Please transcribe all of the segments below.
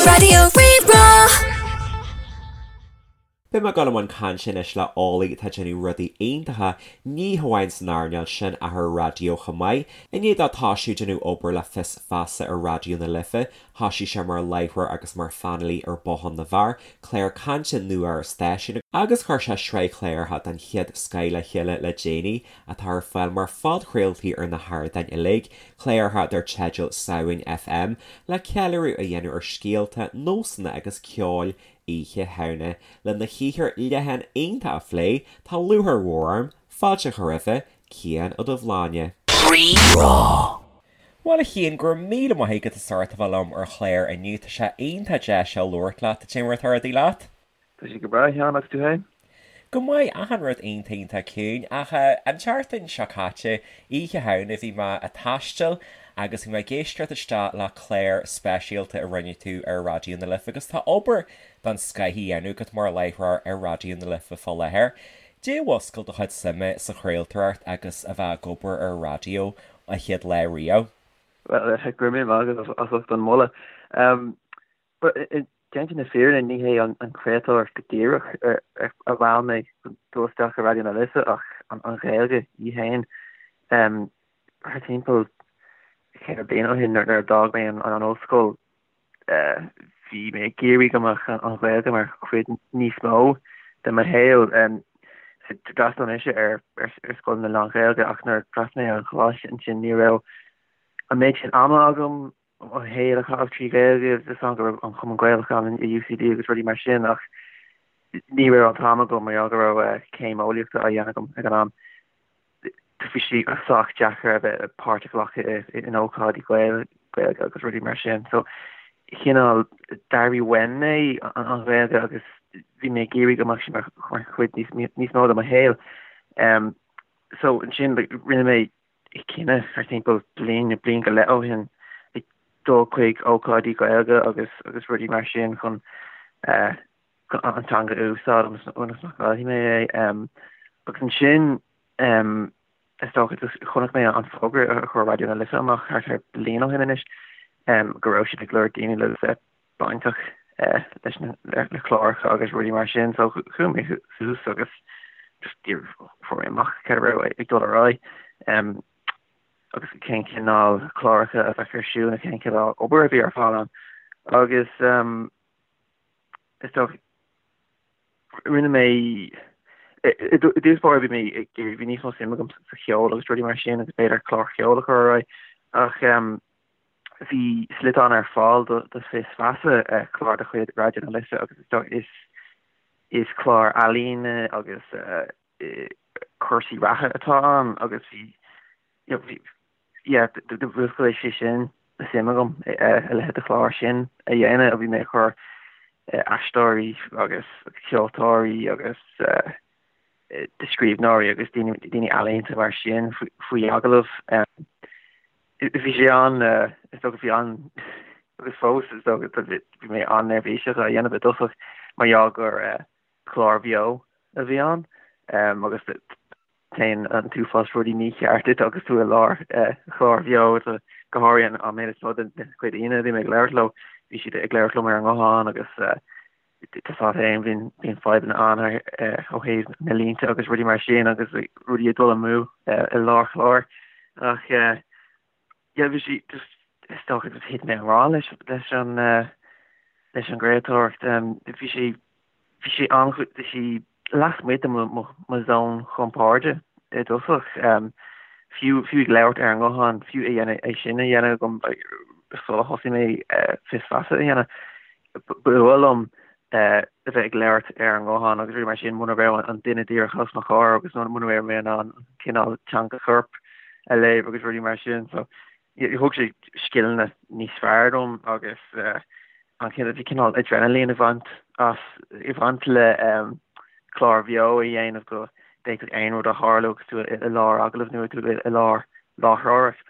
Raidió Rí-Rá. Beidh mé ag dul i mbun cainte anois le Ollie atá ag déanamh rudaí iontacha, ní hamháin san earnáil sin ach ar an raidió chomh maith. I ndiaidh dó toisiú ag déanamh obair le Fios Feasa ar Raidió na Life, thoisigh sé mar láithreoir agus mar phainéalaí ar Bothán na bhFear, clár cainte nua ar an stáisiún, agus chuir sé sraith chláracha den chéad scoith le chéile le déanaí, atá ar fáil mar phodchraoltaí ar na hardáin uilig, cláracha dar teideal Samhain FM, le ceiliúradh a dhéanamh ar scéalta, nósanna agus ceoil Oíche Shamhna. Lena shaothar leathan iontach a phlé, tá lúcháir mhór orm fáilte a chur roimhe, Cian Ó Dubhshláine. Rí-Rá. Bhuel a Chiain, go raibh míle maith agat as ucht a bheith liom ar an chlár inniu. Tá sé iontach deas labhairt leat. Cad é mar atá rudaí leat? Tá sé go breá, a Sheáin, agus tú féin? Go maith, achan rud iontach iontach ciúin. Ach an tseachtain seo caite, Oíche Shamhna, bhí mé ag taisteal agus bhí mé ag éisteacht isteach le clár speisialta a rinne tú ar Raidió na Life agus tá obair den scoith á dhéanamh agat mar láithreoir ar Raidió na Life fá láthair. Cad é a mhúscail do chuid suime sa chraoltóireacht agus a bheith ag obair ar raidió an chéad lá riamh? Bhuel, go raibh míle maith agat as ucht an moladh. Déanta na fírinne, ní hé an chraoltóireacht go díreach a mheall mé dul isteach i Raidió na Life ach an Ghaeilge í féin. Thart timpeall cheithre bliana ó shin nuair a d'fhág mé an ollscoil, bhí mé ag iarraidh go mbeadh an Ghaeilge mar chuid níos mó de mo shaol. D'fhreastail mise ar scoileanna lán-Ghaeilge ach nuair a d'fhreastail mé ar an choláiste ansin ní raibh an méid sin ama agam mo shaol a chaitheamh trí Ghaeilge, tá a fhios agam go raibh an Cumann Gaelach ann i UCD agus rudaí mar sin ach ní raibh an t-am agam mar gheall go raibh céim eolaíochta á dhéanamh agam ag an am. Bhí sé sách deacair a bheith páirt a ghlacadh in ócáidí Gaeilge agus rudaí mar sin. So chineál d'airigh uaim mé an Ghaeilge agus bhí mé ag iarraidh go mbeadh sí mar chuid níos mó de mo shaol. So ansin rinne mé cinneadh thart timpeall bliain nó bliain go leith ó shin ag dul chuig ócáidí Gaeilge agus agus rudaí mar sin chun an teanga a úsáid ionas nach gcaillfidh mé é. Agus ansin is dócha just chonaic mé an fógra a chuir Raidió na Life amach thart ar bliain ó shin anois go raibh siad ag lorg daoine le bheith bainteach leis na le cláracha agus rudaí mar sin so chuaigh mé suas agus just fuair mé amach cad a raibh ag dul ar aghaidh agus cén cineál cláracha a bheadh ar siúl nó cén cineál obair a bhí ar fáil ann agus is dócha rinne mé i dtús báire bhí mé bhí níos mó suim agam sa cheol agus rudaí mar sin agus b'fhéidir clár cheoil a chur ar aghaidh ach Bhí sliotán ar fáil do Fios Feasa, clár de chuid Raidió na Life agus is is clár ealaíne agus cúrsaí reatha atá ann agus bhí bhí yeah mhúscail sé sin suim agam a leithéid de chlár sin a dhéanamh. Bhí mé ag cur aisteoirí agus ceoltóirí agus scríbhneoirí agus daoine ealaíonta mar sin faoi agallamh. Bhí sé an, is dócha, bhí an, agus fós is dócha, bhí mé an-neirbhíseach á dhéanamh i dtosach mar gheall gur clár bheo a bhí ann agus téann an t-uafás rudaí mícheart duit agus tú i lár chlár bheo, go háirithe an méid is mó den chuid daoine a bhí mé ag labhairt leo, bhí siad ag labhairt liom ar an nguthán agus tá a fhios agat féin, bíonn fadhbanna ann ó thaobh na línte agus rudaí mar sin agus rudaí ag dul amú i lár chláir. Ach yeah, bhí sé just, is dócha just thit mé i ngrá leis leis an leis an gcraoltóireacht. Bhí sé bhí sé an bhí sé lasmuigh de mo zón chompoird i dtosach. Fiú fiú ag labhairt ar an nguthán, fiú é dhéanamh é sin a dhéanamh agam sula thosaigh mé Fios Feasa a dhéanamh. Ba fhuath liom a bheith ag labhairt ar an nguthán agus rudaí mar sin muna raibh an duine díreach os mo chomhair agus muna raibh mé in ann cineál teanga choirp a léamh agus rudaí mar sin. So thug sé scileanna níos fearr dom agus an cineál bhí cineál adrenaline ag baint as ag baint le clár bheo a dhéanamh go bhféadfadh aon rud a tharlú agus tú i lár agallaimh nó tú i lár láithreoireacht.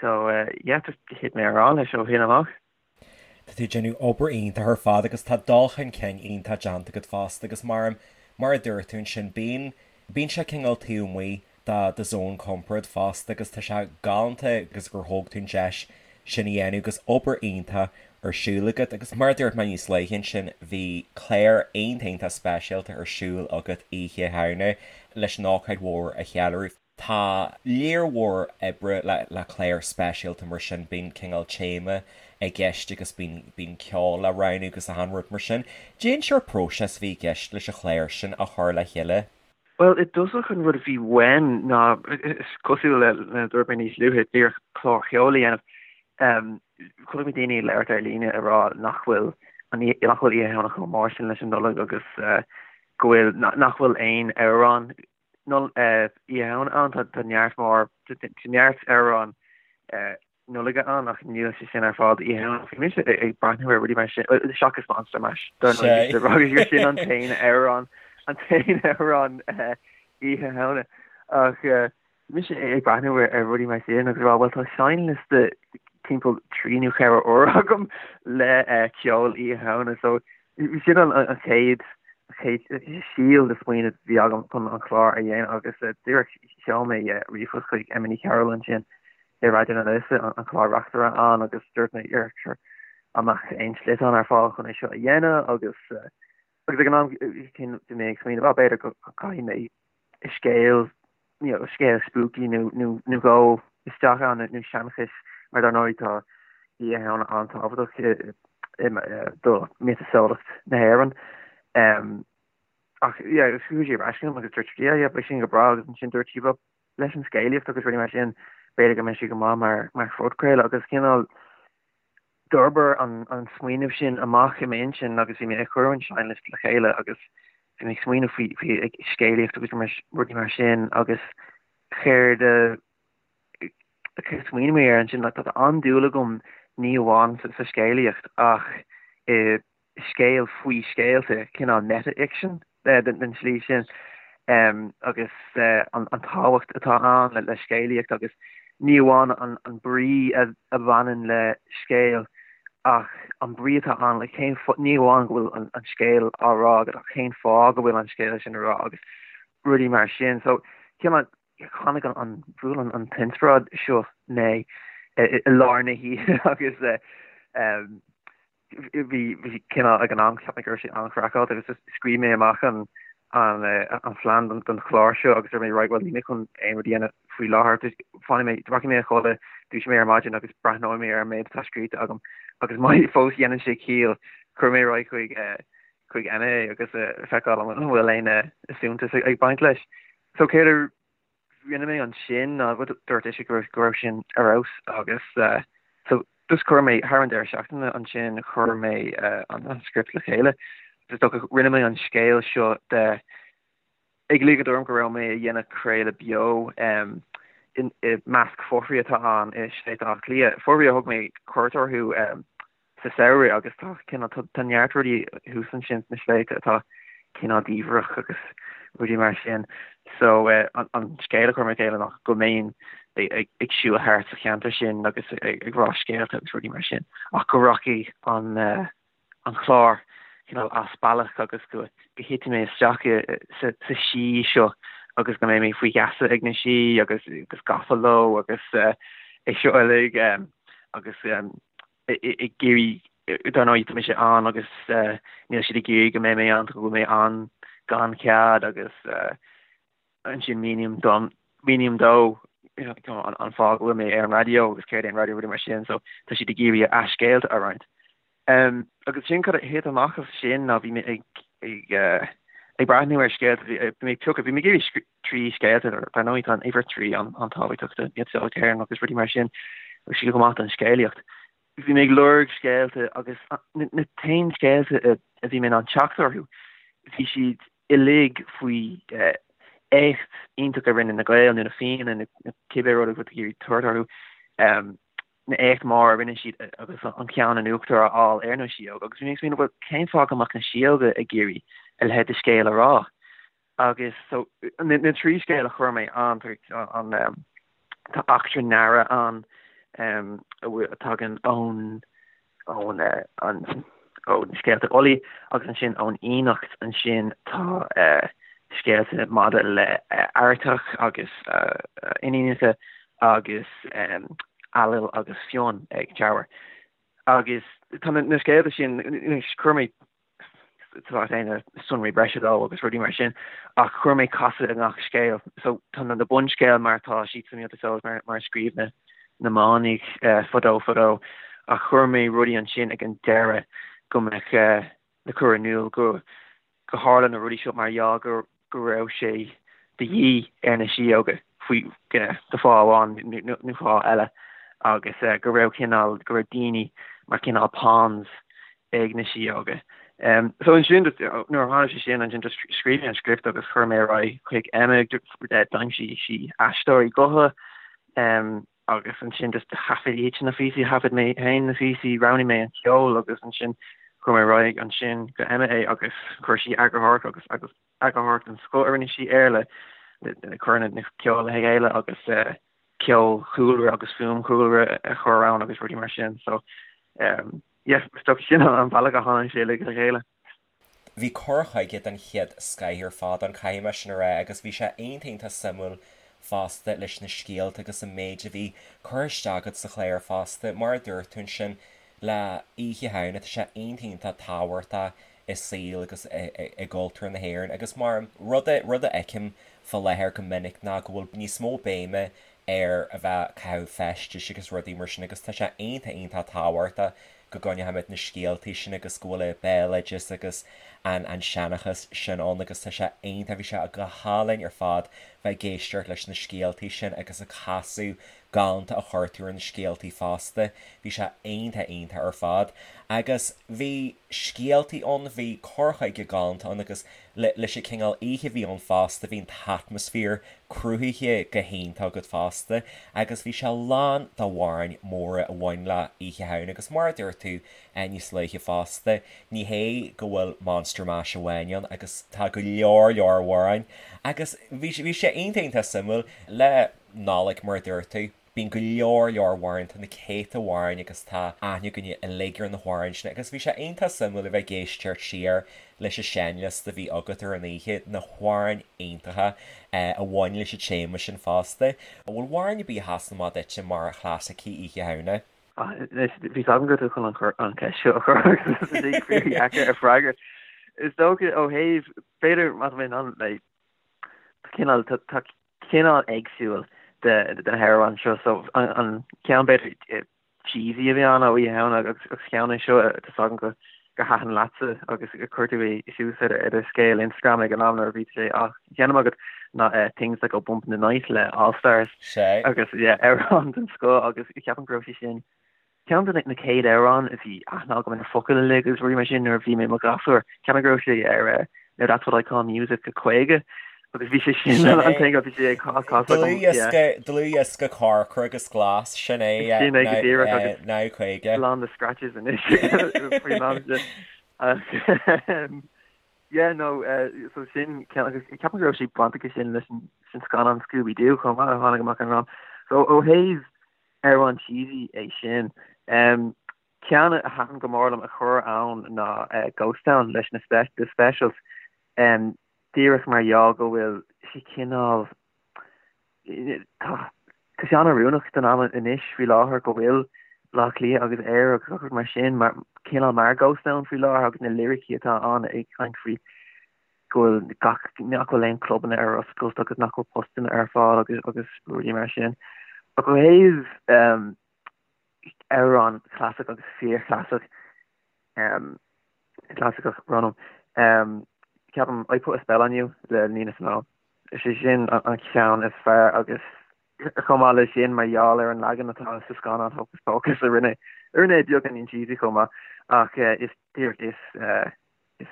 So yeah, just thit mé i ngrá leis ó shin amach. Tá tú ag déanamh obair iontach ar fad agus tá dul chun cinn iontach déanta agat fosta agus mar mar a dúirt tú ansin bíonn bíonn sé cineál taobh amuigh de do zón compoird fosta agus tá sé galánta agus gur thóg tú an deis. sin a dhéanamh agus obair iontach ar siúl agat agus mar a dúirt mé níos luaithe ansin bhí clár iontach iontach speisialta ar siúl agat Oíche Shamhna leis an ócáid mhór a cheiliúradh. Tá lear mhór oibre le clár speisialta mar sin, bíonn cineál téama i gceist agus bíonn bíonn ceol le roghnú agus achan rud mar sin. Cén sórt próiseas a bhí i gceist leis an chlár sin a chur le chéile. Bhuel, i dtosach an rud a bhí uaim ná, is cosúil le a dúirt mé níos luaithe, díreach clár cheoil a dhéanamh. Chonaic mé daoine ag labhairt ar líne ag rá nach bhfuil nach bhfuil Oíche Shamhna chomh mór sin leis an Nollaig agus go bhfuil nach bhfuil aon amhrán Oíche Shamhna ann. Tá neart mór, tá neart amhrán Nollag ann ach níl sé sin ar fáil d'Oíche Shamhna. Bhí mise ag breathnú ar rudaí mar sin, seachas Monster Mash, dar ndóigh, gur sin an t-aon amhrán, an t-aon amhrán Oíche Shamhna. Ach bhí mise ag breathnú ar rudaí mar sin agus ag rá, bhuel tá seinnliosta timpeall 3 nó 4 uair agam le ceol Oíche Shamhna so Sin an chéad síol de smaoineamh a bhí agam chun an clár a dhéanamh agus díreach sheol mé ríomhphost chuig Emma Ní Chearúil ansin i Raidió na Life, an clár-reachtaire ann agus dúirt mé sure an mbeadh aon sliotán ar fáil chun é seo a dhéanamh agus agus ag an am céanna bhí mé ag smaoineamh, ah b'fhéidir go gcaithfidh mé scéal you know, scéal spooky nó nó nó dhó isteach ann nó seanchas mar dar ndóigh tá Oíche Shamhna an-tábhachtach do mhiotaseolaíocht na hÉireann. Um, ach yeah, chuaigh sí ar ais chugam agus dúirt sí yeah, yeah, beidh sin go breá agus ansin dúirt sí well, leis an scéalaíocht agus rudaí mar sin b'fhéidir go mbeidh sé go maith mar mar phodchraoladh agus cineál D'fhorbair an smaoineamh sin amach i m'intinn agus bhí mé ag cur an seinnliosta le chéile agus bhí mé ag smaoineamh faoi faoi scéalaíocht agus rudaí mar sin agus céard a smaoinigh mé air ansin like tá an-dúil agam ní amháin sa scéalaíocht ach i scéal faoi scéalta, cineál meta-fhicsean den tslí sin agus an tábhacht atá ann le scéalaíocht agus ní amháin an brí a bhaineann le scéal ach an brí atá ann le cén ní amháin go bhfuil an scéal á rá agat ach cén fáth go bhfuil an scéal sin á rá agus rudaí mar sin. So cineál tháinig an bhuail an t-inspioráid seo mé i lár na hoíche agus bhí bhí cineál ag an am cheap mé go raibh sé an-chraiceáilte agus just scríobh mé amach an an an phlean don don chlár seo agus dúirt mé right well níl mé chun aon rud a dhéanamh faoi láthair just fanfaidh mé rachaidh mé a chodladh dúiseoidh mé ar maidin agus breathnóidh mé ar an méid atá scríte agam agus má fós dhéanann sé ciall cuirfidh mé ar aghaidh chuig chuig Emma agus feiceáil an bhfuil aon suntas ag baint leis. So céard a rinne mé ansin ná dúirt ise go raibh sin ar fheabhas agus so just chuir mé thar an deireadh seachtaine ansin chuir mé an script le chéile. Is dócha rinne mé an scéal seo de ag ligean orm go raibh mé ag dhéanamh craoladh beo i measc fothraigh atá ann i Sléibhte Átha Cliath, fothraigh a thug mé cuairt orthu sa samhradh agus tá cineál tá neart rudaí thuas ansin sna sléibhte atá cineál diamhrach agus rudaí mar sin. So an scéal a chuir mé le chéile ná go mbeinn ag siúl thart sa cheantar sin agus ag rá scéalta agus rudaí mar sin ach go rachaidh an an clár cineál as bealach agus go thitfidh mé isteach sa sí seo agus go mbeidh mé faoi gheasa ag na sí agus agus gafa leo agus é seo uilig agus ag iarraidh, dar ndóigh tá mise ann agus níl siad ag iarraidh go mbeidh mé ann, go bhfuil mé ann gan cead agus ansin míním dom, míním dó an fáth go bhfuil mé ar an raidió agus céard é an raidió rudaí mar sin so tá siad ag iarraidh a scéalta a roinnt. Agus sin cad a thit amach as sin ná bhí mé ag ag ag breathnú ar scéalta, bhí mé ag piocadh, bhí mé ag iarraidh 3 scéalta, dar ndóigh tá an uimhir 3 an-tábhachtach do mhiotaseolaíocht na hÉireann agus rudaí mar sin, agus sé go maith don scéalaíocht. Bhí mé ag lorg scéalta agus na t-aon scéalta a bhí mé in ann teacht orthu, bhí siad uilig faoi éacht iontach a rinne na Gaeil nó na Fianna nó cibé rud a bhfuil tú ag iarraidh tabhairt orthu, na éacht mór a rinne siad agus an ceann in uachtar a fháil ar na síóga agus bhí mé ag smaoineamh bhuel cén fáth go mbeadh na síóga ag iarraidh a leithéid de scéal a rá? Agus so, na 3 scéal a chuir mé ann, an, tá eachtra Nara ann a tagann ón, ón, an, ó na scéalta Ulaidh agus ansin ón Fhiannaíocht ansin tá scéalta maidir le Airteach agus iníonacha agus. Ailill agus Fionn ag Teamhair. Agus tá na scéalta sin, chuir mé tá sonraí breise leo agus rudaí mar sin, ach chuir mé casadh i ngach scéal. So tá na bunscéal mar atá siad sa miotaseolas mar mar a scríobh na na manaigh fadó fadó, ach chuir mé rudaí ansin ag an deireadh go mbeadh le cur in iúl go go tharla na rudaí seo mar gheall go go raibh sé de dhíth ar na síóga faoi do fáth amháin nó fáth eile agus go raibh cineál, go raibh daoine mar cineál pawns ag na síóga. So ansin nuair a tharla sé sin ansin just scríobh mé an script agus chuir mé ar aghaidh chuig Emma, d'aimsigh sí aisteoirí gutha agus ansin just thaifead iadsan na píosaí, thaifead mé féin na píosaí, roghnaigh mé an ceol agus ansin chuir mé ar aghaidh ansin go Emma é agus chuir sí eagarthóireacht agus agus eagarthóireacht den scoth a rinne sí air le le cur na ceol le chéile agus ceol chúlra agus fuaim chúlra a chur ann agus rudaí mar sin so yeah is dócha sin an bealach a tháinig sé le chéile. Bhí cur chuige den chéad scoith ar fad ann, caithfidh mé sin a rá, agus bhí sé iontach iontach suimiúil fosta leis na scéalta agus an méid a bhí curtha isteach agat sa chlár fosta. Mar a dúirt tú ansin, le Oíche Shamhna, tá sé iontach iontach tábhachtach i saol agus i gcultúr na hÉireann agus mar rud a rud a fheicim fá láthair go minic ná go bhfuil níos mó béime ar a bheith ag caitheamh feistis agus rudaí mar sin agus tá sé iontach iontach tábhachtach go gcoinneoimid na scéaltaí sin agus go bhfuil an béaloideas agus an an seanchas sin ann agus tá sé iontach, bhí sé go hálainn ar fad bheith ag éisteacht leis na scéaltaí sin agus an casadh galánta a chuir tú ar na scéaltaí fosta, bhí sé iontach iontach ar fad. Agus bhí scéaltaí ann, bhí cur chuige galánta ann agus leis an cineál oíche a bhí ann fosta, bhí an t-atmaisféar cruthaithe go hiontach agat fosta agus bhí sé lán d'amhráin mhóra a bhain le Oíche Shamhna agus mar a dúirt tú níos luaithe fosta, ní hé go bhfuil Monster Mash amháin ann agus tá go leor leor amhráin agus bhí bhí sé iontach iontach suimiúil le Nollaig mar a dúirt tú. Bíonn go leor leor amhrán, tá na céadta amhráin agus tá aithne againne uilig ar na hamhráin sin agus bhí sé iontach suimiúil a bheith ag éisteacht siar leis an seinnliosta a bhí agat ar an oíche, na hamhráin iontacha a bhain leis an téama sin fosta. An bhfuil amhrán ar bith a sheasann amach duitse mar chlasaicí Oíche Shamhna? Anois, bhí a fhios agam go raibh tú chun an cheist seo a chur agus tá sí fíordheacair a freagairt. Is dócha ó thaobh, b'fhéidir má tá mé in ann, like, cineál, tá cineál éagsúil de na hamhráin seo so an ceann b'fhéidir cheesy a bhí ann ó Oíche Shamhna agus ceann é seo tá a fhios agam go gur thaitin leatsa agus gur chuir tú é suas ar ar do scéal Instagram ag an am nuair a bhí sé á sheinm agat ná Things That Go Bump in the Night le All Stars agus yeah amhrán den scoth agus ceapaim go raibh sé sin Ceann de na chéad amhráin a bhí aithne agam ar na focail uilig agus rudaí mar sin nuair a bhí mé i mo ghasúr. Ceapaim go raibh sé ar Now That's What I Call Music 50 agus bhí sé sin an thing a bhí sé ag casadh agam. Dlúthdhiosca, dlúthdhiosca corcra agus glas, sin é, Sin é go díreach agus Now 50. lán de scratches anois faoin am sin. Ach yeah no so sin ceann agus ceapaim go raibh sé baint aige sin leis an scannán Scooby Doo chomh maith a tháinig amach an am. So ó thaobh Amhrán cheesy é sin. Ceann a thaitin go mór liom a chur ann ná Ghost Town leis na The Specials. Díreach mar gheall go bhfuil sé cineál, tá sé an-oiriúnach don am anois faoi láthair go bhfuil Baile Átha Cliath agus Éire agus gach rud mar sin mar cineál mar Ghost Town faoi láthair agus na liricí atá ann ag caint faoi go bhfuil gach, nach bhfuil aon clubanna ar oscailt agus nach bhfuil postanna ar fáil agus agus rudaí mar sin. Ach ó thaobh amhrán clasaiceach agus fíorchlasaiceach, clasaiceach, brón orm, ceapaim I Put a Spell on You le Nina Simone. Is é sin an ceann is fearr agus chomh maith leis sin mar gheall ar an leagan atá sa scannán Hocus Pocus a rinne a rinne é beagáinín cheesy chomh maith ach is díreach is Is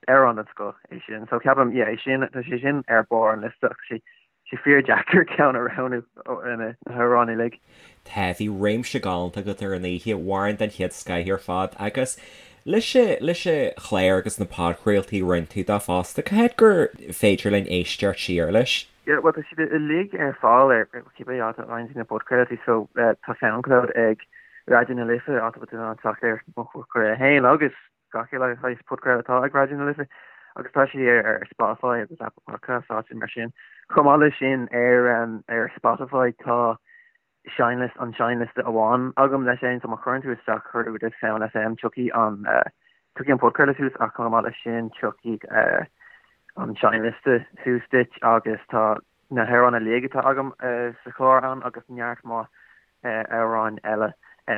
amhrán den scoth é sin. So ceapaim, yeah, é sin, tá sé sin ar barr an liosta ach tá sé sé fíordheacair ceann a roghnú ó na hamhráin uilig. Tá, bhí réimse galánta agat ar an oíche, amhráin den chéad scoith ar fad agus leis an, leis an chlár agus na podchraoltaí a rinne tú dó fosta, cá háit gur féidir linn éisteacht siar leis? Yeah, bhuel tá siad uilig ar fáil ar cibé áit a fhaigheann tú na podchraoltaí so tá Soundcloud ag Raidió na Life, áit a bhfuil tú in ann teacht ar mo phodchraoladh féin agus gach uile shaghas podchraoladh atá ag Raidió na Life agus tá sé ar Spotify agus Apple Podcasts áiteanna mar sin. Chomh maith leis sin ar ar Spotify tá. seinnliosta, an seinnliosta amháin agam leis féin, so má chuireann tú isteach Cuardú with Sound FM tiocfaidh an tiocfaidh an podchraoladh suas ach chomh maith leis sin tiocfaidh an seinnliosta suas duit agus tá na hamhráin uilig atá agam sa chlár ann agus neart maith amhráin eile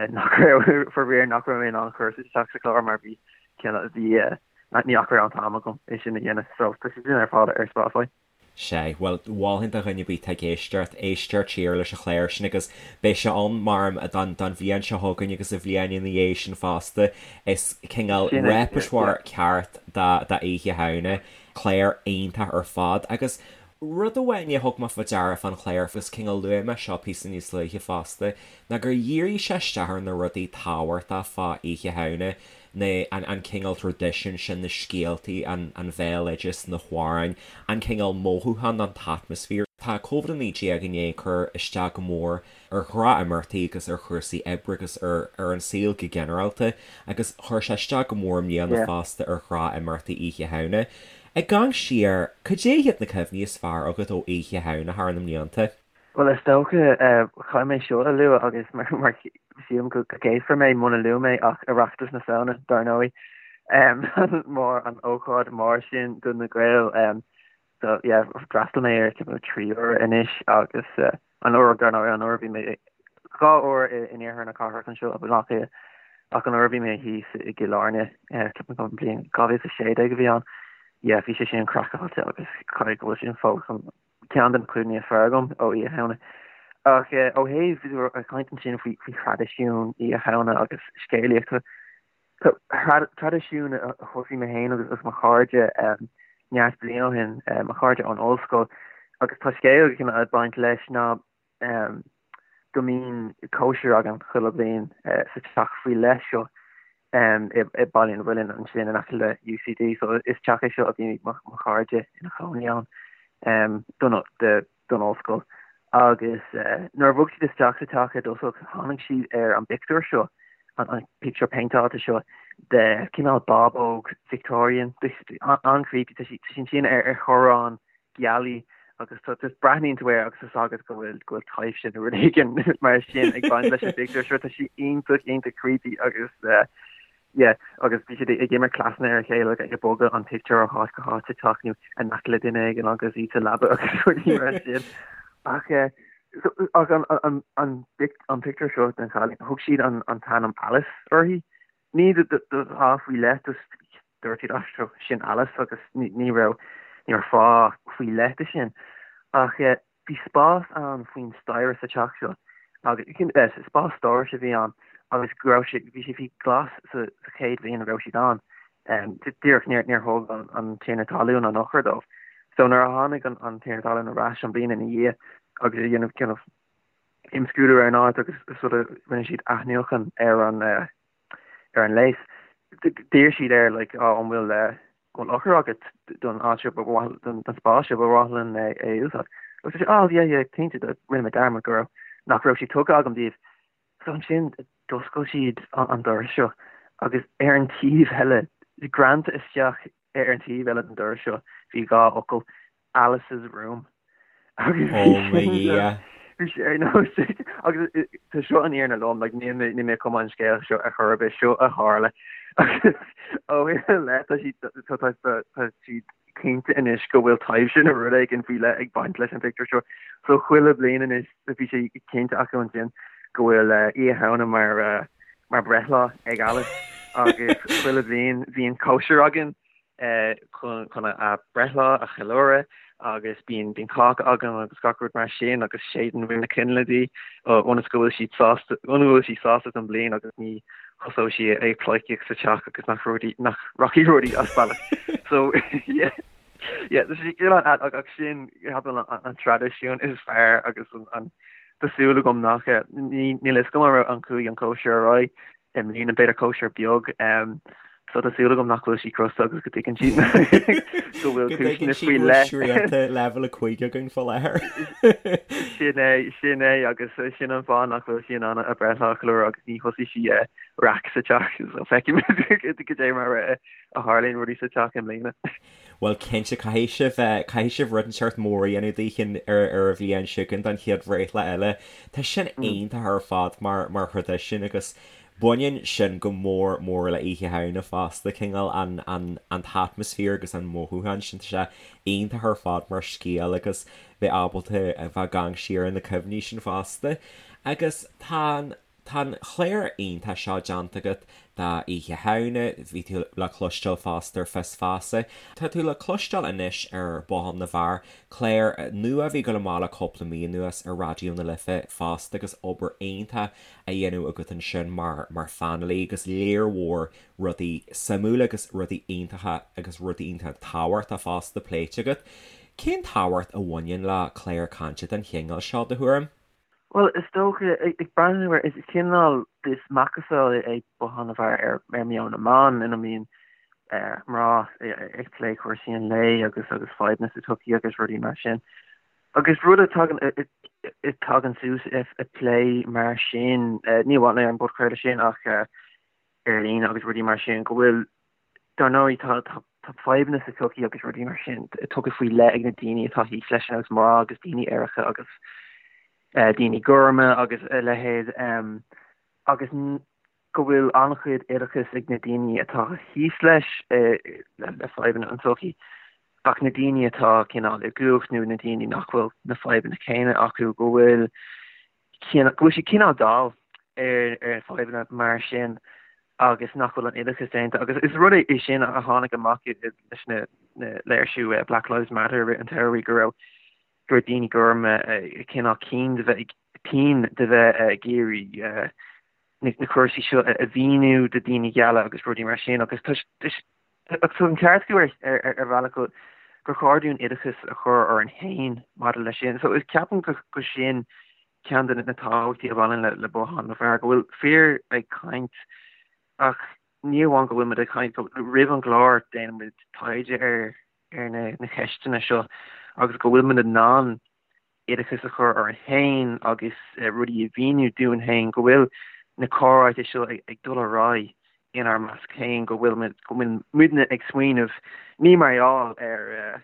nach raibh, faraor, nach raibh mé in ann cur isteach sa chlár mar bhí bhí ní nach raibh an t-am agam é sin a dhéanamh. So tá sé sin ar fáil ar Spotify. Sea, bhuel, mholfainn do dhuine ar bith atá ag éisteacht, éisteacht siar leis an chlár sin agus beidh sé ann mar don don bhliain seo chugainn agus an bhliain ina dhiaidh sin fosta. Is cineál Sin é, yeah. repertoire ceart do do Oíche Shamhna. Clár iontach ar fad agus Rud amháin a thug mé faoi deara fán chlár, agus cineál luaigh mé seo píosa níos luaithe fosta, ná gur dhírigh sé isteach ar na rudaí tábhachtacha fá Oíche Shamhna, na, an, an cineál traidisiún sin, na scéaltaí, an, an bhéaloideas, na hamhráin, an cineál mothúchán, an t-atmaisféar. Tá Covid-19 i ndiaidh cur isteach go mór ar ghnáthimeachtaí agus ar chúrsaí oibre agus ar ar an saol go ginearálta agus chuir sé isteach go mór i mbliana fosta ar ghnáthimeachtaí Oíche Shamhna. Ag amharc siar, cad é hiad na cuimhní is fearr agat ó Oíche Shamhna thar na mblianta? Bhuel, is dócha, caithfidh mé seo a lua agus mar sílim go gcéasfar mé muna luaim é ach Oireachtas na Samhna, dar ndóigh, mar an ócáid mór sin do na Gaeil. So yeah, d'fhreastail mé air timpeall 3 uair anois agus an uair dar ndóigh an uair a bhí mé 2 uair in iarthar na cathrach anseo i Baile Átha Cliath ach an uair a bhí mé thíos i gCill Airne ceapaim go bliain 2016 a bhí ann yeah bhí sé sin craiceáilte agus caithfidh go bhfuil sin fós an ceann de na cuimhní is fearr agam ó Oíche Shamhna. Ach ó thaobh ag caint ansin faoi faoi thraidisiún Oíche Shamhna agus scéalaíocht Traidisiún a thosaigh mé féin agus mo chairde neart bliain ó shin, mo chairde ón ollscoil, agus tá scéal ag baint leis ná go mbíonn cóisir againn chuile bhliain sa teach faoi leith seo i Baile an Mhuilinn ansin in aice le UCD. So is teach é seo a bhí mo chairde ina chónaí ann don don ollscoil agus nuair a bhog siad isteach sa teach i dtosach tháinig siad ar an bpictiúr seo, an pictiúr péinteáilte seo de cineál bábóg Victorian, an-creepy, tá sí ansin ar ar chorrán gealaí agus tá just breathnaíonn tú air agus tá a fhios agat go bhfuil go bhfuil taibhse nó rud éigin mar sin ag baint leis an bpictiúr seo, tá sí iontach iontach creepy agus Yeah, agus bhí siad ag imirt cleasanna ar a chéile, ag bogadh an pictiúr ó háit go háit sa teach nó in aice le duine éigin agus iad sa leaba agus rudaí mar sin. Ach eh, so, ach an, an, an, an pictiúr seo den chailín, thug siad an, an t-ainm Alice uirthi. Ní do, do, do fháth faoi leith, just dúirt siad, ah, seo, sin Alice agus ní, ní raibh, ní raibh fáth faoi leith de sin. Ach eh, Bhí spás ann faoin staighre sa teach seo agus spás stórais a bhí ann agus go raibh sé, bhí sé faoi ghlas sa chéad bhliain a raibh siad ann. Díreach níor níor thóg an tiarna talún an eochair dóibh. So nuair a tháinig an tiarna talún ar ais an bhliain ina dhiaidh agus ag déanamh kind of imscrúdú ar an áit agus sort of rinne siad athnuachan ar an ar an léas, d'iarr siad air like oh an bhfuil an bhfuil eochair agat don áit seo ba mhaith don spás seo ba mhaith linn é a úsáid. Agus dúirt sé oh yeah yeah cinnte rinne mé dearmad go raibh nach raibh sé tugtha agam daoibh. So ansin d'oscail siad an doras seo agus ar an taobh eile greanta isteach ar an taobh eile den doras seo bhí 2 fhocal Alice's room. Agus Ó mo Dhia. bhí sé ar nós agus tá seo an fhírinne lom like níl mé níl mé ag cumadh an scéal seo ar chor ar bith seo a tharla agus ó shin i leith tá siad tá tá tá tá siad cinnte anois go bhfuil taibhse nó rud éigin faoi leith ag baint leis an phictiúr seo so chuile bhliain anois bhí sé cinnte acu ansin go bhfuil Oíche Shamhna mar mar breithlá ag Alice agus chuile bhliain bíonn cóisir againn chun a breithlá a cheiliúradh agus bíonn bíonn cáca againn agus gach rud mar sin agus séideann muid na coinnle di ionas go bhfuil siad sásta ionas go bhfuil sí sásta don bhliain agus ní thosóidh sí ag pleidhcíocht sa teach agus nach rudaí nach rachaidh rudaí as bealach. So yeah yeah tá sé cineál ach sin ceapaim an traidisiún is fearr agus an tá súil agam nach níl a fhios agam an raibh an chuaigh an cóisir ar aghaidh i mbliana b'fhéidir cóisir beag. So tá súil agam nach bhfuil sí crosta agus go dtuigeann sí go bhfuil cúiseanna faoi leith. Srianta leibhéal 5 againn faoi láthair. Sin é, sin é agus sin an fáth nach bhfuil sí in ann a breithlá a cheiliúradh agus ní thosaigh sí raic sa teach so feicfimid cad é mar a tharlaíonn rudaí sa teach i mbliana. Bhuel cinnte caithfidh sibh, caithfidh sibh rud inteacht mór a dhéanamh daoithi ar ar an bhliain seo chugainn don chéad bhreithlá eile. Tá sin iontach ar fad mar mar thraidisiún agus Baineann sin go mór mór le Oíche Shamhna fosta, cineál an, an, an t-atmaisféar agus an mothúchán sin, tá sé iontach ar fad mar scéal agus bheith ábalta a bheith ag amharc siar ar na cuimhní sin fosta. Agus tá an, tá an chlár iontach seo déanta agat do Oíche Shamhna, bhí tú le cloisteáil fosta ar Fios Feasa. Tá tú le cloisteáil anois ar Bothán na bhFear, clár nua a bhí ag dul amach le cúpla mí anuas ar Raidió na Life fosta agus obair iontach a dhéanamh agat ansin mar mar phainéalaí agus léar mhór rudaí suimiúla agus rudaí iontacha agus rudaí iontacha tábhachtacha fosta pléite agat. Cén tábhacht a bhaineann le clár cainte den chineál seo, do thuairim? Bhuel, is dócha, ag breathnú ar, is cineál, is macasamhail é Bothán na bhFear ar ar meon na mban ina mbíonn mná ag plé cúrsaí an lae agus agus fadhbanna sa tsochaí agus rudaí mar sin. Agus rud a tagann a tagann suas i plé mar sin, ní amháin ar an bpodchraoladh sin ach ar líne agus rudaí mar sin, go bhfuil, dar ndóigh, tá tá fadhbanna sa tsochaí agus rudaí mar sin tugtha faoi leith ag na daoine atá thíos leis, ar nós mná agus daoine aeracha agus daoine gorma agus a leithéid agus go bhfuil an-chuid oideachais ag na daoine atá thíos leis, le fadhbanna an tsochaí, ach na daoine atá cineál i gcumhacht nó na daoine nach bhfuil na fadhbanna céanna acu, go bhfuil go bhfuil siad cineál dall ar ar fadhbanna mar sin agus nach bhfuil an oideachas déanta. Agus is rud é sin a tháinig amach leis na léirsiú Black Lives Matter i rith an tsamhraidh go raibh go raibh daoine gorma cineál cian de bheith tinn de bheith ag iarraidh na cúrsaí seo a mhíniú do daoine geala agus rudaí mar sin agus tá an ceart acu ar ar bhealach go gur chóir dúinn oideachas a chur orainn féin maidir leis sin. So is ceapaim go go sin ceann de na tábhachtaí a bhaineann le le Bothán na bhFear, go bhfuil fir ag caint ach ní amháin go bhfuil muid ag caint, roimh an gclár déanann muid taighde ar ar na na ceisteanna seo agus go bhfuil muid in ann oideachas a chur orainn féin agus rudaí a mhíniú dúinn féin, go bhfuil na comhráite seo ag dul ar aghaidh inár measc féin, go bhfuil muid, go bhfuil muidne ag smaoineamh, ní mar gheall ar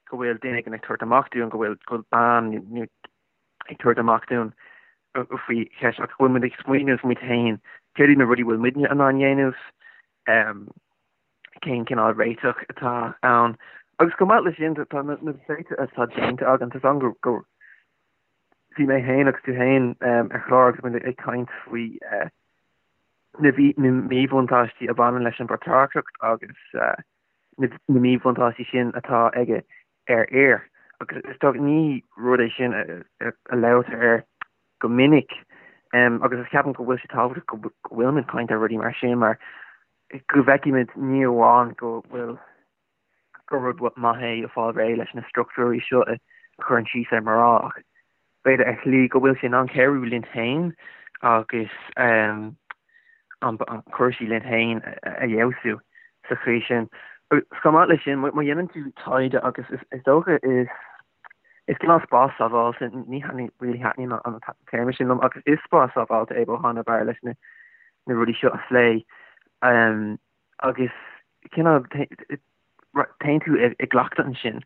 go bhfuil duine éigin ag tabhairt amach dúinn, go bhfuil, go bhfuil bean nó ag tabhairt amach dúinn faoi cheist, ach go bhfuil muid ag smaoineamh muid féin, céard iad na rudaí a bhfuil muidne in ann dhéanamh, cén cineál réiteach atá ann. Agus chomh maith leis sin, tá na pléite atá déanta againn, tá ann go bhí mé féin agus tú féin ar chlár agus muid ag caint faoi na míbhuntáistí a bhaineann leis an bpatrarcacht agus na míbhuntáistí sin atá aige ar fhir. Agus is dócha ní rud é sin a labhraítear air go minic agus is ceapaim go bhfuil sé tábhachtach go bhfuilimid ag caint ar rudaí mar sin mar go bhfeicimid ní amháin go bhfuil gur rud maith é fáil réidh leis na struchtúirí seo a chuireann síos ar mná ach b'fhéidir ar shlí go bhfuil sé in ann cabhrú linn féin agus an cúrsaí linn féin a fheabhsú sa chaoi sin. Agus chomh maith leis sin, má dhéanann tú taighde agus is dócha is is cineál spás sábháilte, ní really thaitníonn an téarma sin liom, ach is spás sábháilte é Bothán na bhFear leis na rudaí seo a phlé agus cineál téann tú i gcleachtadh ansin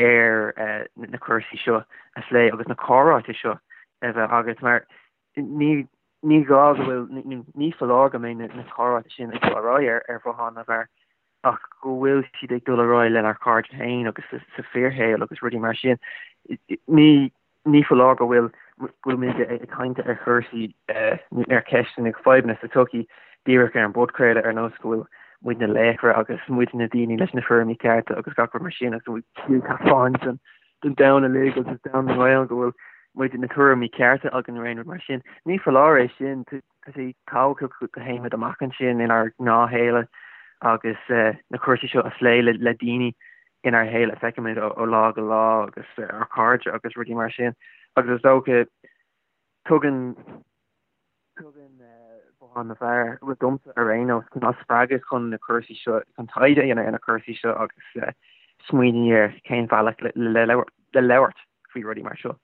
ar na cúrsaí seo a phlé agus na comhráite seo a bheith agat mar ní ní gá go bhfuil, ní foláir go mbeidh na comhráite sin ag dul ar aghaidh ar Bhothán na bhFear ach go bhfuil siad ag dul ar aghaidh lenár cairde féin agus sa fíorshaol agus rudaí mar sin. Ní ní foláir go bhfuil go bhfuil muid ag caint ar chúrsaí nó ar cheisteanna fadhbanna sa tsochaí díreach ar an bpodchraoladh ar nós go bhfuil muid na laochra agus muid na daoine leis na tuairimí cearta agus gach rud mar sin agus go bhfuil taispeáint don don domhan uilig agus domhan na nGael go bhfuil muid na tuairimí cearta againn nó aon rud mar sin. Ní foláir é sin, tá sé tábhachtach go dtéimid amach ansin inár ngnáthshaol agus na cúrsaí seo a phlé le daoine inár shaol a feicimid ó lá go lá agus ár cairde agus rudaí mar sin. Agus is dócha tugann tugann. bhothán na bhFear, bhuel domsa ar aon nós, cineál spreagadh chun na cúrsaí seo, chun taighde a dhéanamh ar na cúrsaí seo agus smaoineamh ar cén bhealach le labhairt faoi rudaí mar seo.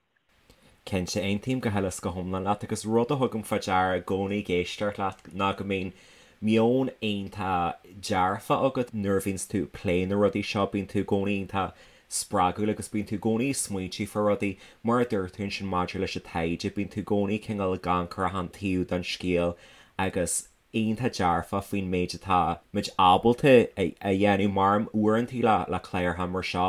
Cinnte, aontaím go huile is go hiomlán leat agus rud a thugaim fá deara i gcónaí ag éisteacht leat ná go mbíonn meon iontach dearfach agat nuair a bhíonns tú ag plé na rudaí seo, bíonn tú i gcónaí iontach spreagúil agus bíonn tú i gcónaí ag smaointiú fá rudaí, mar a dúirt tú ansin maidir leis an taighde, bíonn tú i gcónaí cineál ag amharc ar achan taobh den scéal agus iontach dearfach faoin méid atá muid ábalta a dhéanamh mar uaireantaí le cláracha mar seo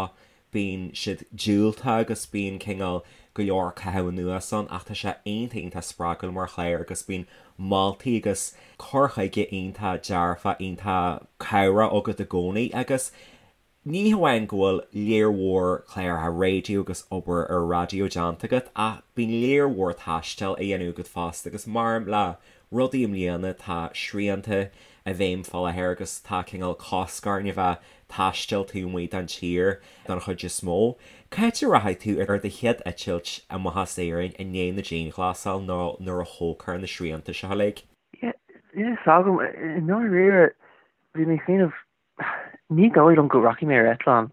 bíonn siad diúltach agus bíonn cineál go leor caitheamh anuas ann ach tá sé iontach iontach spreagúil mar chlár agus bíonn moltaí agus cur chuige iontach dearfach iontach cabhrach agat i gcónaí agus ní hamháin go bhfuil léar mhór cláracha raidió agus obair ar raidió déanta agat ach bíonn léar mhór taistil á dhéanamh agat fosta agus mar le rudaí i mbliana tá srianta i bhfeidhm fá láthair agus tá cineál cosc orainn a bheith taisteal taobh amuigh den tír don chuid is mó. Cá háit a rachaidh tú ar do chéad eitilt amach as Éirinn i ndiaidh na dianghlasála nó nuair a thógfar na srianta seo uilig? Yeah, níl a fhios agam. I ndáiríre, bhí mé ag smaoineamh, ní dóigh liom go rachaidh mé ar eitleán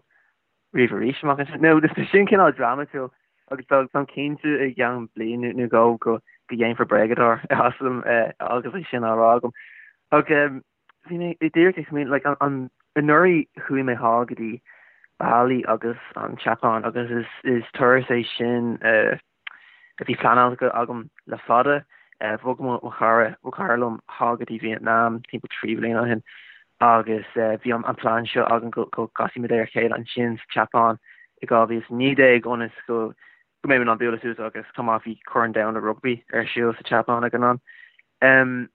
riamh arís amach anseo. Nó tá sin cineál drámatúil agus táim cinnte i gceann bliain nó dhó go dhéanfar bréagadóir asam agus é sin á rá agam. Ach Bhí mé díreach ag smaoineamh, like, an, anuraidh chuaigh mé thall go dtí Bali agus an tSeapáin agus is, is turas é sin a bhí pleanáilte agam le fada. Bhog mo chara, mo chara liom thall go dtí Vietnam timpeall 3 bhliain ó shin agus bhí an plean seo againn go, go gcasfaidh muid ar a chéile ansin sa tSeapáin i 2019 ionas go go mbeidh muid in ann bualadh suas agus chomh maith bhí Corn Domhanda Rugbaí ar siúl sa tSeapáin ag an am.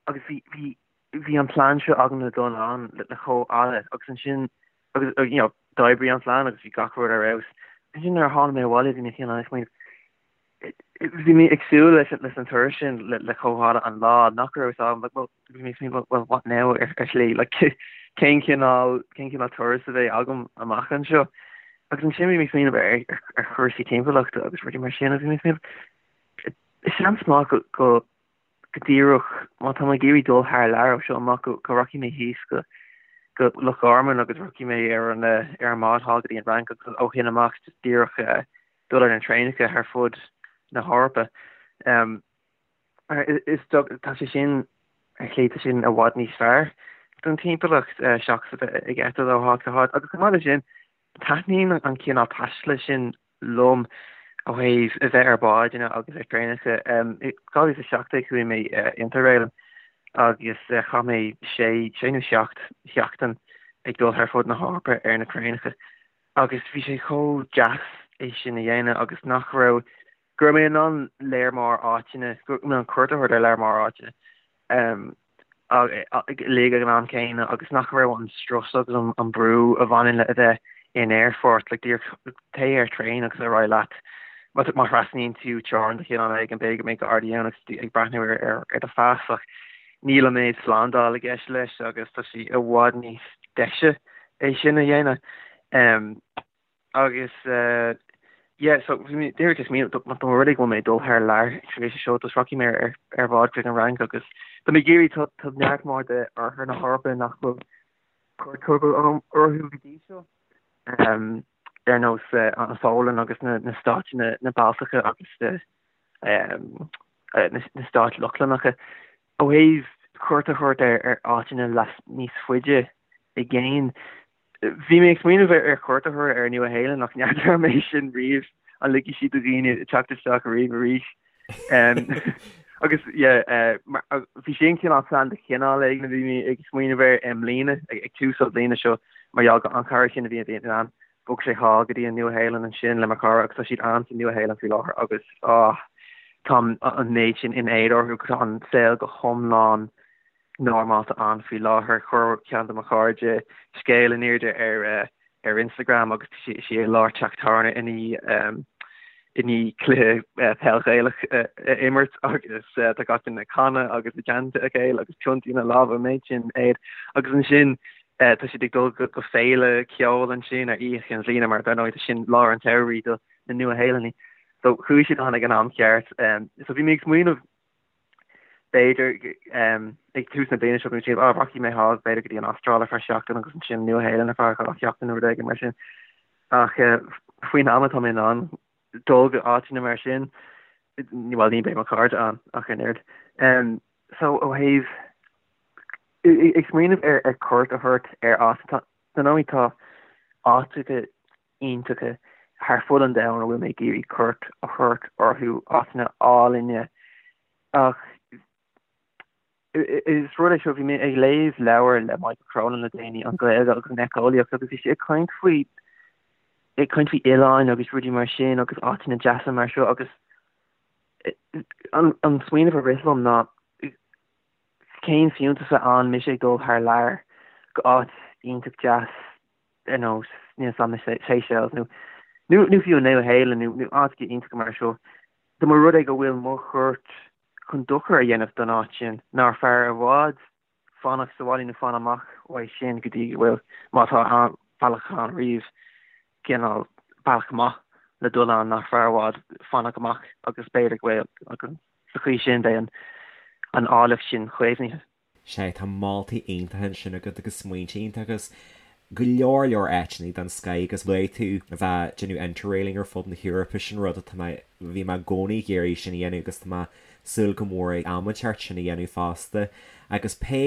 Agus bhí, bhí, bhí an plean seo agam le dul ann le, le chomh fhada agus ansin, agus, you know, d'oibrigh an plean agus bhí gach rud ar fheabhas. Ansin nuair a tháinig mé abhaile bhí mé cineál ag smaoineamh, bhí mé ag súil leis, leis an turas sin le, le chomh fhada an lá nach raibh fhios agam, like, well, bhí mé ag smaoineamh, well, what now ar, ar shlí, like, cén cineál, cén cineál turas a bheidh agam amach anseo. Agus ansin bhí mé ag smaoineamh ar, ar, ar chúrsaí timpeallachta agus rudaí mar sin agus bhí mé ag smaoineamh, seans maith go, go, go díreach, má tá mé ag iarraidh dul thar lear ó seo amach, go rachaidh mé thíos go go Loch Garman agus rachaidh mé ar an ar an mbád thall go dtí an Fhrainc agus ó shin amach just díreach dul ar na traenacha thar fud na hEorpa. Is tá sé sin ar shlí tá sin i bhfad níos fearr don timpeallacht seachas a bheith ag eitilt ó háit go háit agus chomh maith leis sin taitníonn an cineál taistil sin liom ó thaobh a bheith ar bháid agus ar traenacha. I 2017 chuaigh mé Interrailing agus chaith mé sé, sé nó seacht sheachtain ag dul thar fud na hEorpa ar na traenacha agus bhí sé chomh deas é sin a dhéanamh agus nach raibh, go raibh mé in ann léar mór áiteanna, go raibh mé in ann cuairt a thabhairt ar léar mór áiteanna. uilig ag an am céanna agus nach raibh an strus agus an brú a bhaineann le a bheith in aerfort, like díreach téigh ar traein agus ar aghaidh leat. Má thrasnaíonn tú teorainn de chineál éigin, b'fhéidir go mbeidh gardaí ann agus tú ag breathnú ar ar do phas ach níl an méid slándáil i gceist leis agus tá sé i bhfad níos deise é sin a dhéanamh. Agus yeah, so bhí mé díreach ag smaoineamh, má tá rud é go bhfuil mé ag dul thar lear tar éis seo, just rachaidh mé ar ar bhád chuig an Fhrainc agus tá mé ag iarraidh, tá tá neart mór de oirthear na hEorpa nach bhfuil cuairt tugtha agam orthu go dtí seo, ar nós an Pholainn agus na na stáit na na Baltacha agus na stáit Lochlannacha. Ó thaobh cuairt a thabhairt ar ar áiteanna leas níos faide i gcéin, Bhí mé ag smaoineamh ar chuairt a thabhairt ar an Nua Shéalainn ach n'fheadar an mbeidh sin riamh, an ligfidh siad do dhaoine teacht isteach riamh arís. Agus yeah, bhí sin cineál plean de chineál éigin a bhí mé ag smaoineamh air i mbliana, ag tús an bhliana seo, mar gheall go an cara sin a bhí i Vietnam, bhog sé thall go dtí an Nua Shéalainn ansin le mo chara agus tá siad ann sa Nua Shéalainn faoi láthair agus ah, tá an méid sin in éad orthu, tá an saol go hiomlán normálta ann faoi láthair. Chuir ceann de mo chairde scéal in airde ar ar Instagram agus tá sí i lár teach tábhairne i ndiaidh i ndiaidh cluiche peil Ghaelach a imirt agus tá gach duine ag canadh agus i dteannta a chéile agus piontaí ina lámha an méid sin éad agus ansin tá siad ag dul go féile ceoil ansin ar Oíche Chinn Bhliana mar dar ndóigh tá sin lár an tsamhraidh do na Nua-Shéalannaigh. So chuaigh siad ann ag an am ceart. So bhí mé ag smaoineamh. B'fhéidir ag tús na bliana seo go mbeidh, ah, rachaidh mé thall, b'fhéidir go dtí an Astráil ar feadh seachtain agus ansin Nua-Shéalainn ar feadh dhá sheachtain nó rud éigin mar sin. Ach faoin am atá mé in ann dul go áiteanna mar sin, bhuel, ní bheidh mo chairde ann ach an oiread. So ó thaobh ag smaoineamh ar cuairt a thabhairt ar áit, tá, dar ndóigh tá áiteacha iontacha thar fud an domhain a bhfuil mé ag iarraidh cuairt a thabhairt orthu, áiteanna álainne. Ach is rud é seo, bhí mé ag léamh leabhar le Michael Cronin le déanaí, An Ghaeilge agus an Éiceolaíocht, agus bhí sé ag caint faoi, ag caint faoi oileáin agus rudaí mar sin agus áiteanna deasa mar seo agus an, an smaoineamh a rith liom ná cén fiúntas a ann mise ag dul thar lear go áit iontach deas ar nós níl 'fhios a'm na Seychelles nó nó nó fiú an Nua-Shéalainn nó nó áiteacha iontacha mar seo. Dá mba rud é go bhfuil mo chuairt chun dochar a dhéanamh don áit sin, nár fearr i bhfad fanacht sa bhaile nó fan amach uaidh sin go dtí go bhfuil, má tá bealach ann riamh, cineál bealach maith le dul ann, nach fearr i bhfad fanacht amach agus b'fhéidir go bhfuil, agus sa chaoi sin beidh an áilleacht sin caomhnaithe. Sea, tá moltaí iontacha ansin agat agus smaointe iontacha agus go leor leor áiteanna den scoth agus luaigh tú a bheith ag déanamh interrailing ar fud na hEorpa, sin rud atá mé, bhí mé i gcónaí ag iarraidh sin a dhéanamh agus tá mé ag súil go mór ag am inteacht sin a dhéanamh fosta. Agus pé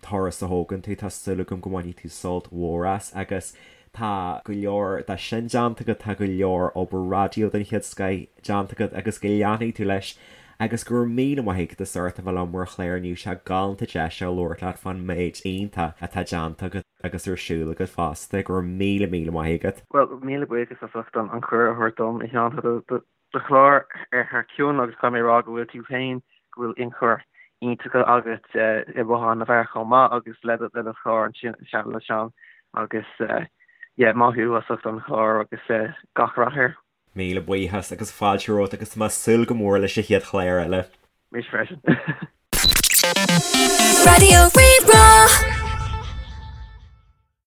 turas a thógann tú, tá súil agam go mbainfidh tú sult mhór as agus Tá go leor de sin déanta agat, tá go leor obair raidió den chéad scoith déanta agat agus go leanfaidh tú leis agus go raibh míle maith agat as ucht a bheith liom ar an chlár inniu, sé galánta deis a labhairt leat fán méid iontach atá déanta agat agus ar siúl agat fosta. Go raibh míle míle maith agat. Bhuel, míle buíochas as ucht an cuireadh a thabhairt dom, a Sheáin. Tá do do chlár ar thar cionn agus caithfidh mé a rá go bhfuil tú féin, go bhfuil ionchur iontach agat i mBothán na bhFear chomh maith agus le do le do chlár ansin le Seán agus yeah maith thú as ucht an chlár agus gach rath air. Míle buíochas agus fáilte romhat agus tá mé ag súil go mór leis an chéad chlár eile. Mise freisin. Raidió Rí-Rá.